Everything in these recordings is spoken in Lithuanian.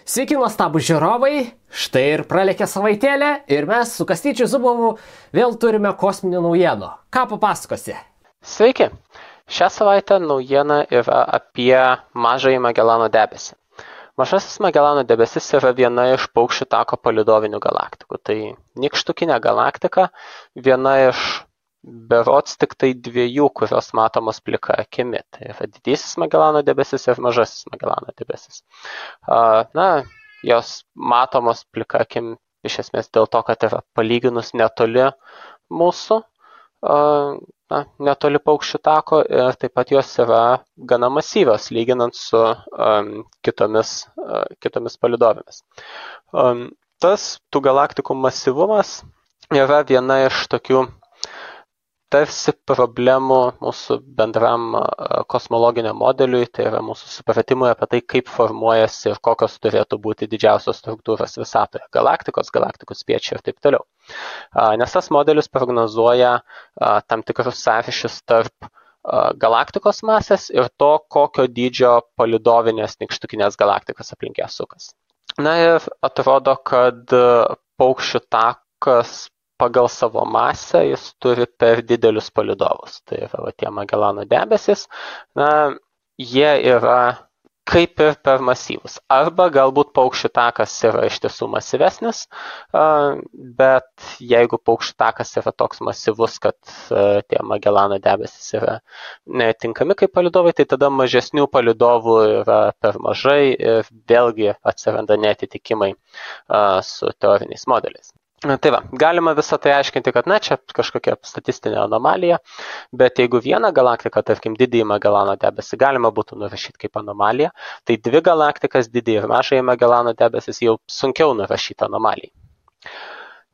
Sveiki, nuostabų žiūrovai, štai ir pralėkė savaitėlė ir mes su Kastyčiu Zubovu vėl turime kosminių naujienų. Ką papasakosi? Sveiki! Šią savaitę naujiena yra apie Mažąjį Magelano debesį. Mažasis Magelano debesis yra viena iš Paukščių tako palydovinių galaktikų. Tai nykštukinė galaktika, viena iš berods tik tai dviejų, kurios matomos plika akimi. Tai yra Didysis Magelano debesis ir Mažasis Magelano debesis. Jos matomos plika akim iš esmės dėl to, kad yra palyginus netoli mūsų, netoli Paukščių tako, ir taip pat jos yra gana masyvios, lyginant su kitomis palydovėmis. Tas tų galaktikų masyvumas yra viena iš tokių tarsi problemų mūsų bendram kosmologiniam modeliui, tai yra mūsų supratimui apie tai, kaip formuojasi ir kokios turėtų būti didžiausios struktūros visatoje, galaktikų spiečiai ir taip toliau. Nes tas modelis prognozuoja tam tikrus sąryšius tarp galaktikos masės ir to, kokio dydžio palydovinės nykštukinės galaktikos aplink ją sukas. Na ir atrodo, kad Paukščių takas pagal savo masę jis turi per didelius palydovus. Tai yra tie Magelano debesis, jie yra kaip ir per masyvus. Arba galbūt Paukščių takas yra iš tiesų masyvesnis, bet jeigu Paukščių takas yra toks masyvus, kad tie Magelano debesis yra netinkami kaip palydovai, tai tada mažesnių palydovų yra per mažai ir vėlgi atsiranda neatitikimai su teoriniais modeliais. Tai va, galima visą tai aiškinti, kad čia kažkokia statistinė anomalija, bet jeigu vieną galaktiką, tarkim, Didįjį Magelano debesį galima būtų nurašyti kaip anomaliją, tai dvi galaktikas, Didįjį ir Mažąjį Magelano debesis, jau sunkiau nurašyti anomalijai.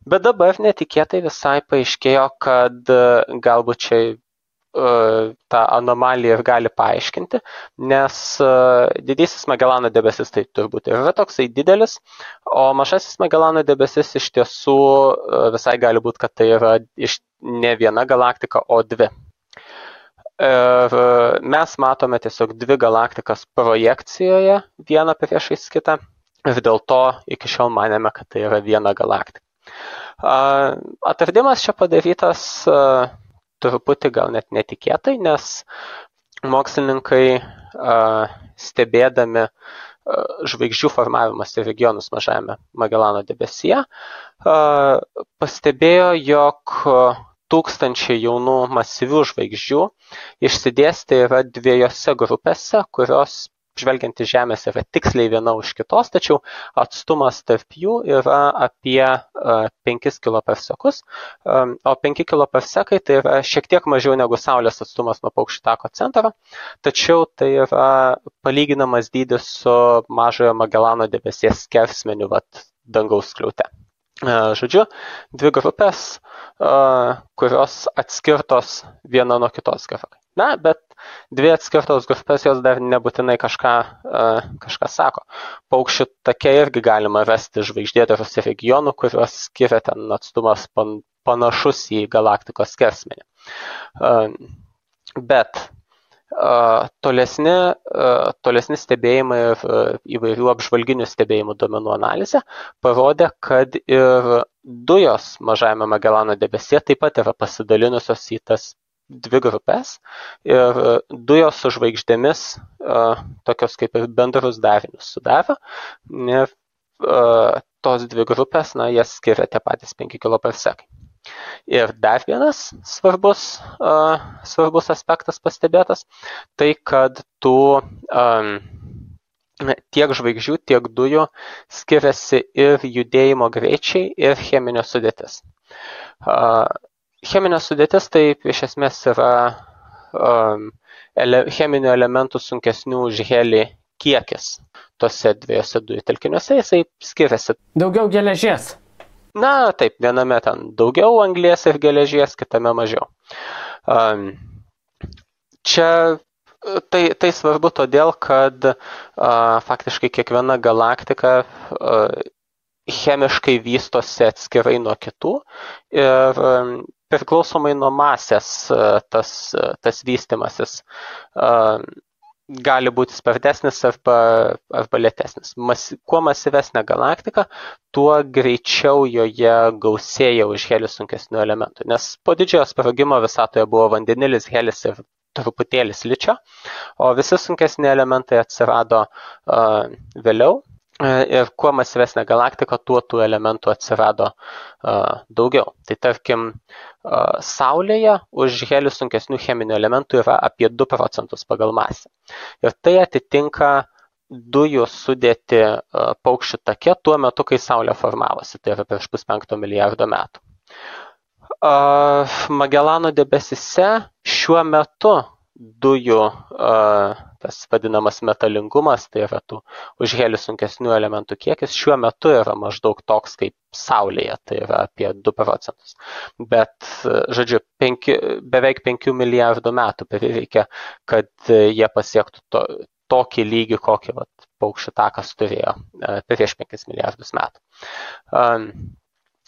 Bet dabar netikėtai visai paaiškėjo, kad galbūt čia tą anomaliją ir gali paaiškinti, nes Didysis Magelano debesis tai turbūt yra toksai didelis, o Mažasis Magelano debesis iš tiesų visai gali būti, kad tai yra ne viena galaktika, o dvi. Ir mes matome tiesiog dvi galaktikas projekcijoje, vieną priešais kitą, ir dėl to iki šiol manėme, kad tai yra viena galaktika. Atradimas čia padarytas truputį gal net netikėtai, nes mokslininkai stebėdami žvaigždžių formavimosi regionus Mažajame Magelano debesyje pastebėjo, jog tūkstančiai jaunų masyvių žvaigždžių išsidėstę yra dviejose grupėse, kurios žvelgiant į Žemės yra tiksliai viena už kitos, tačiau atstumas tarp jų yra apie 5 kPa, o 5 kPa tai yra šiek tiek mažiau negu Saulės atstumas nuo Paukščių tako centro, tačiau tai yra palyginamas dydis su Mažojo Magelano debesies skersmeniu dangaus skliaute. Žodžiu, dvi grupės, kurios atskirtos viena nuo kitos gerokai. Bet dvi atskirtos grupės jos dar nebūtinai kažką sako. Paukščių take irgi galima rasti žvaigždėtarus regionų, kuriuos skiria ten atstumas panašus į galaktikos skersmenį. Bet tolesni stebėjimai ir įvairių apžvalginių stebėjimų duomenų analizė parodė, kad ir dujos Mažajame Magelano debesyje taip pat yra pasidalinusios į tas dvi grupės ir dujos su žvaigždėmis tokios kaip ir bendrus darinius sudaro. Ir tos dvi grupės, jas skiria tie patys 5 kPa. Ir dar vienas svarbus aspektas pastebėtas, tai kad tiek žvaigždžių, tiek dujų skiriasi ir judėjimo greičiai, ir cheminė sudėtis. Cheminė sudėtis tai iš esmės yra cheminių elementų sunkesnių už helį kiekis tose dviejose dujų telkiniuose, jisai skiriasi. Daugiau geležies. Taip, viename ten daugiau anglies ir geležies, kitame mažiau. Čia tai svarbu todėl, kad faktiškai kiekviena galaktika chemiškai vystosi atskirai nuo kitų ir priklausomai nuo masės tas vystymasis gali būti spartesnis arba lėtesnis. Kuo masyvesnė galaktika, tuo greičiau joje gausėja už helį sunkesnių elementų. Nes po didžiojo sprogimo visatoje buvo vandenilis, helis ir truputėlį siličio, o visi sunkesni elementai atsirado vėliau. Ir kuo masyvesnė galaktika, tuo tų elementų atsirado daugiau. Tai tarkim, Saulėje už helį sunkesnių cheminių elementų yra apie 2% pagal masę. Ir tai atitinka dujų sudėti paukščių take tuo metu, kai Saulė formavosi, tai yra prieš 5 milijardo metų. Magellano debesyse šiuo metu dujų tas vadinamas metalingumas, tai yra tų už helį sunkesnių elementų kiekis, šiuo metu yra maždaug toks kaip Saulėje, tai yra apie 2%. Bet, žodžiu, beveik 5 milijardų metų prireikia, kad jie pasiektų tokį lygį, kokį paukščių takas turėjo prieš 5 milijardus metų.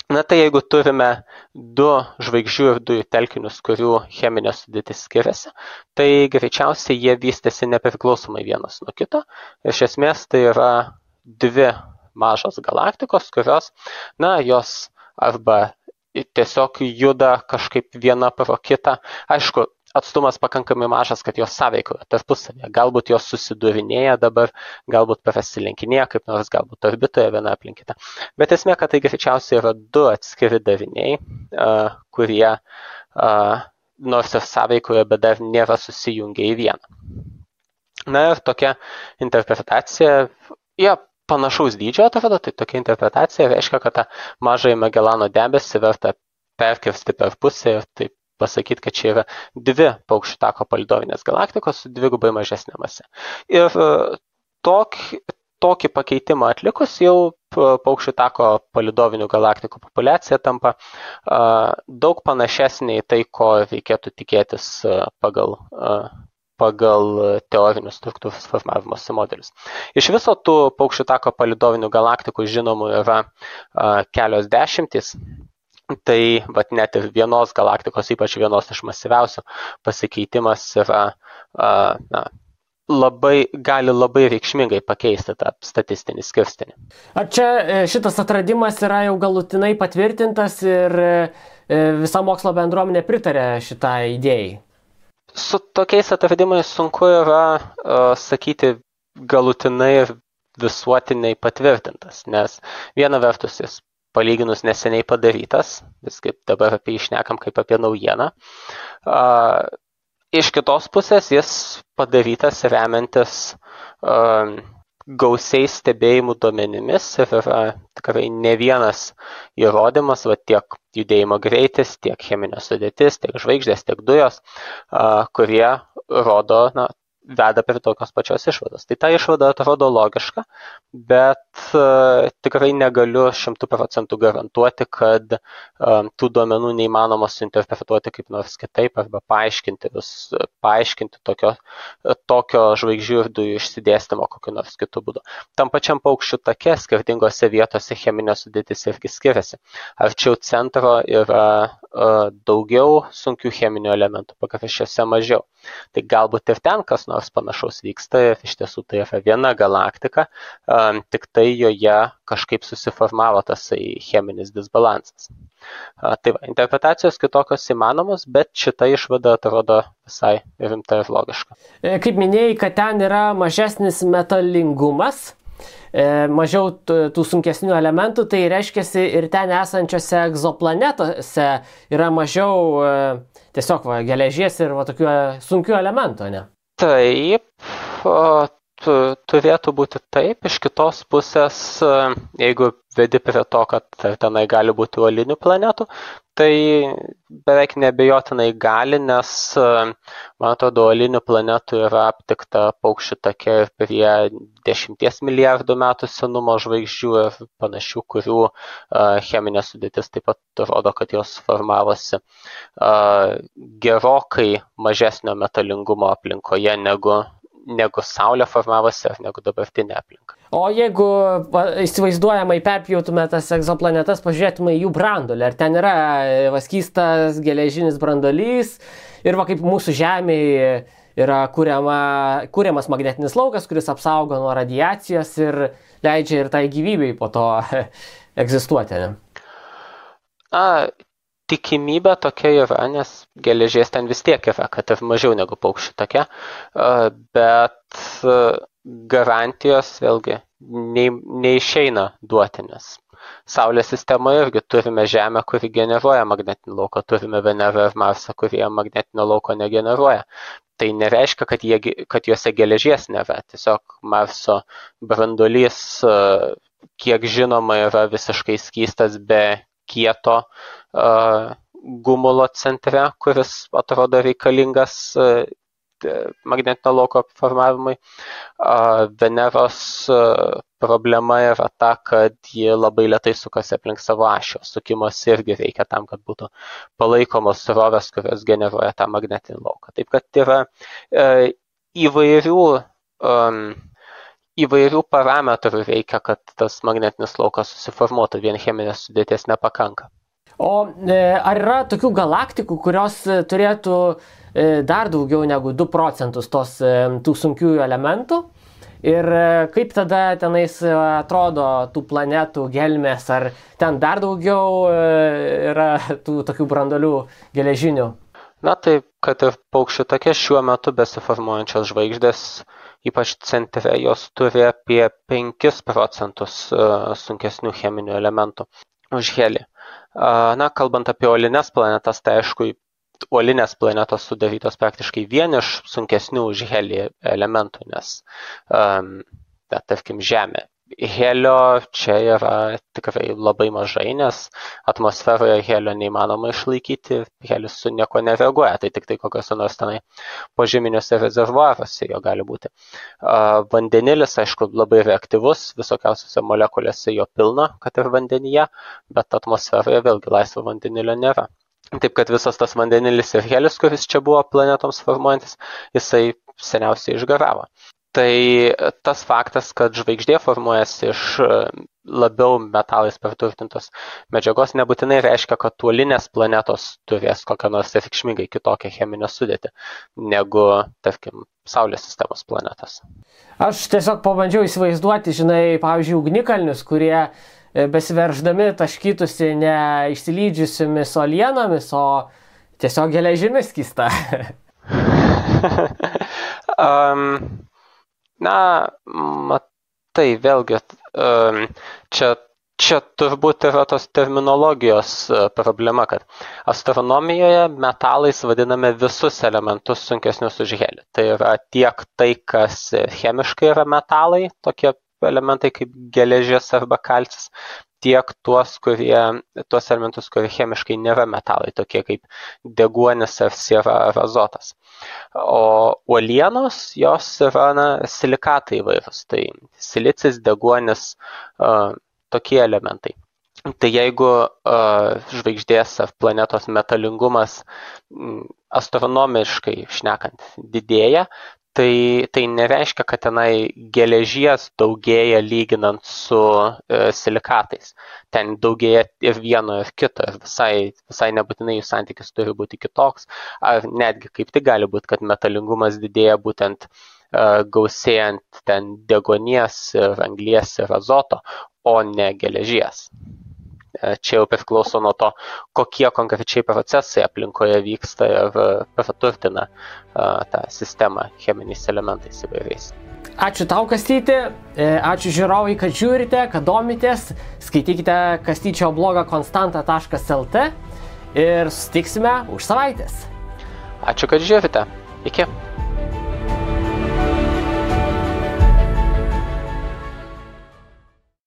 Na tai jeigu turime 2 žvaigždžių ir dujų telkinius, kurių cheminė sudėtis skiriasi, tai greičiausiai jie vystėsi nepriklausomai vienas nuo kito. Iš esmės tai yra 2 mažos galaktikos, kurios, jos arba tiesiog juda kažkaip viena pro kitą. Aišku, atstumas pakankamai mažas, kad jos sąveikoja tarpusavėje. Galbūt jos susidurinėja dabar, galbūt prasilenkinėja, kaip nors galbūt orbitoje viena aplink kitą. Bet esmė, kad tai greičiausiai yra 2 atskiri dariniai, kurie nors ir sąveikoje, bet dar nėra susijungę į vieną. Na ir tokia interpretacija, panašaus dydžio atrodo, tai tokia interpretacija reiškia, kad tą mažąjį Magellano debesį verta perkirsti per pusę ir taip pasakyti, kad čia yra 2 paukščių tako palydovinės galaktikos su 2 mažesnė mase. Ir tokį pakeitimą atlikus jau paukščių tako palydovinių galaktikų populiacija tampa daug panašesnė į tai, ko reikėtų tikėtis pagal teorinius struktūros formavimosi modelius. Iš viso tų paukščių tako palydovinių galaktikų žinomų yra kelios dešimtys. Tai net ir vienos galaktikos, ypač vienos iš masyviausių, pasikeitimas yra, gali labai reikšmingai pakeisti tą statistinį skirstinį. Ar čia šitas atradimas yra jau galutinai patvirtintas ir visa mokslo bendruomenė pritarė šitai idėjai? Su tokiais atradimais sunku yra sakyti galutinai ir visuotiniai patvirtintas, nes viena vertus jis palyginus neseniai padarytas, vis kaip dabar apie jį šnekam kaip apie naujieną. Iš kitos pusės jis padarytas remiantis gausiais stebėjimų duomenimis ir yra tikrai ne vienas įrodymas, tiek judėjimo greitis, tiek cheminė sudėtis, tiek žvaigždės, tiek dujos, kurie rodo, veda prie tokios pačios išvados. Tai ta išvada atrodo logiška, bet tikrai negaliu 100% garantuoti, kad tų duomenų neįmanoma suinterpretuoti kaip nors kitaip arba paaiškinti tokio žvaigždžių ir dujų išsidėstymo kokiu nors kitu būdu. Tam pačiam paukščių take skirtingose vietose cheminė sudėtis irgi skiriasi. Arčiau centro yra daugiau sunkių cheminių elementų, pakraščiuose mažiau. Tai galbūt ir ten kas nors panašaus vyksta ir iš tiesų tai yra viena galaktika, tik tai joje kažkaip susiformavo tas cheminis disbalansas. Tai interpretacijos kitokios įmanomos, bet šita išvada atrodo visai rimta ir logiška. Kaip minėjai, kad ten yra mažesnis metalingumas, mažiau tų sunkesnių elementų, tai reiškiasi ir ten esančiose egzoplanetose yra mažiau tiesiog geležies ir tokių sunkių elementų, ne? Taip, turėtų būti taip. Iš kitos pusės, jeigu vedi prie to, kad tenai gali būti uolinių planetų, tai beveik neabejotinai gali, nes, man atrodo, uolinių planetų yra aptikta paukščių take prie 10 milijardų metų senumo žvaigždžių ir panašių, kurių cheminė sudėtis taip pat rodo, kad jos formavosi gerokai mažesnio metalingumo aplinkoje negu Saulė formavosi ar negu dabartinė aplinka. O jeigu įsivaizduojamai perpjautume tas egzoplanetas, pažiūrėtume jų branduolį, ar ten yra skystas geležinis branduolys ir kaip mūsų Žemėje yra kuriamas magnetinis laukas, kuris apsaugo nuo radiacijos ir leidžia ir tai gyvybei po to egzistuoti. Ne? Tikimybė tokia yra, nes geležies ten vis tiek yra, kad ir mažiau negu paukščių tokia, bet garantijos vėlgi neišeina duoti, nes Saulės sistemoje irgi turime Žemę, kuri generuoja magnetinį lauką, turime Venerą ir Marsą, kurie magnetinio lauko negeneruoja. Tai nereiškia, kad juose geležies nėra. Tiesiog Marso branduolys, kiek žinoma, yra visiškai skystas be kieto gumulo centre, kuris atrodo reikalingas magnetinio lauko formavimui. Veneros problema yra ta, kad ji labai lėtai sukasi aplink savo ašį. Sukimas irgi reikia tam, kad būtų palaikomos srovės, kurios generuoja tą magnetinį lauką. Taip kad yra įvairių parametrų reikia, kad tas magnetinis laukas susiformuotų, vien cheminės sudėties nepakanka. O ar yra tokių galaktikų, kurios turėtų dar daugiau negu 2 procentus tų sunkiųjų elementų? Ir kaip tada tenais atrodo tų planetų gelmės, ar ten dar daugiau yra tų tokių branduolių geležinių? Na tai, kad ir paukščių take šiuo metu besiformuojančios žvaigždės, ypač centre, jos turi apie 5 procentus sunkesnių cheminių elementų už helį. Na, kalbant apie uolines planetas, tai aišku, uolinės planetos sudarytos praktiškai vien iš sunkesnių už helį elementų, nes, tarkim, Žemė. Helio čia yra tikrai labai mažai, nes atmosferoje helio neįmanoma išlaikyti, helis su nieko nereaguoja, tai tik tai kokiuose nors tenai požeminiuose rezervuaruose jo gali būti. Vandenilis, aišku, labai reaktyvus, visokiausiose molekulėse jo pilna, kad ir vandenyje, bet atmosferoje vėlgi laisvo vandenilio nėra. Taip kad visas tas vandenilis ir helis, kuris čia buvo planetoms formuojantis, jisai seniausiai išgaravo. Tai tas faktas, kad žvaigždė formuojasi iš labiau metalais perturtintos medžiagos, nebūtinai reiškia, kad uolinės planetos turės kokią nors reikšmingai kitokią cheminę sudėtį negu, tarkim, Saulės sistemos planetos. Aš tiesiog pabandžiau įsivaizduoti, žinai, pavyzdžiui, ugnikalnius, kurie besiverždami taškytųsi ne išsilydžiusiomis uolienomis, o tiesiog geležimis skysta. Na, matai, vėlgi, čia turbūt yra tos terminologijos problema, kad astronomijoje metalais vadiname visus elementus sunkesnius už helį. Tai yra tiek tai, kas chemiškai yra metalai, tokie elementai kaip geležis arba kalcis, tiek tuos elementus, kurie chemiškai nėra metalai, tokie kaip deguonis ar siera ar azotas. O uolienos, jos yra silikatai įvairūs, tai silicis, deguonis, tokie elementai. Tai jeigu žvaigždės ar planetos metalingumas astronomiškai šnekant didėja, tai nereiškia, kad tenai geležies daugėja lyginant su silikatais. Ten daugėja ir vieno, ir kito, ir visai nebūtinai jų santykis turi būti kitoks, ar netgi kaip tik gali būti, kad metalingumas didėja būtent gausėjant ten deguonies, ir anglies, ir azoto, o ne geležies. Čia jau priklauso nuo to, kokie konkrečiai procesai aplinkoje vyksta ir praturtina tą sistemą cheminiais elementais įvairiais. Ačiū tau, Kastyti, ačiū žiūrovai, kad žiūrite, kad domitės, skaitykite Kastyčio blogą konstanta.lt ir susitiksime už savaitės. Ačiū, kad žiūrite. Iki.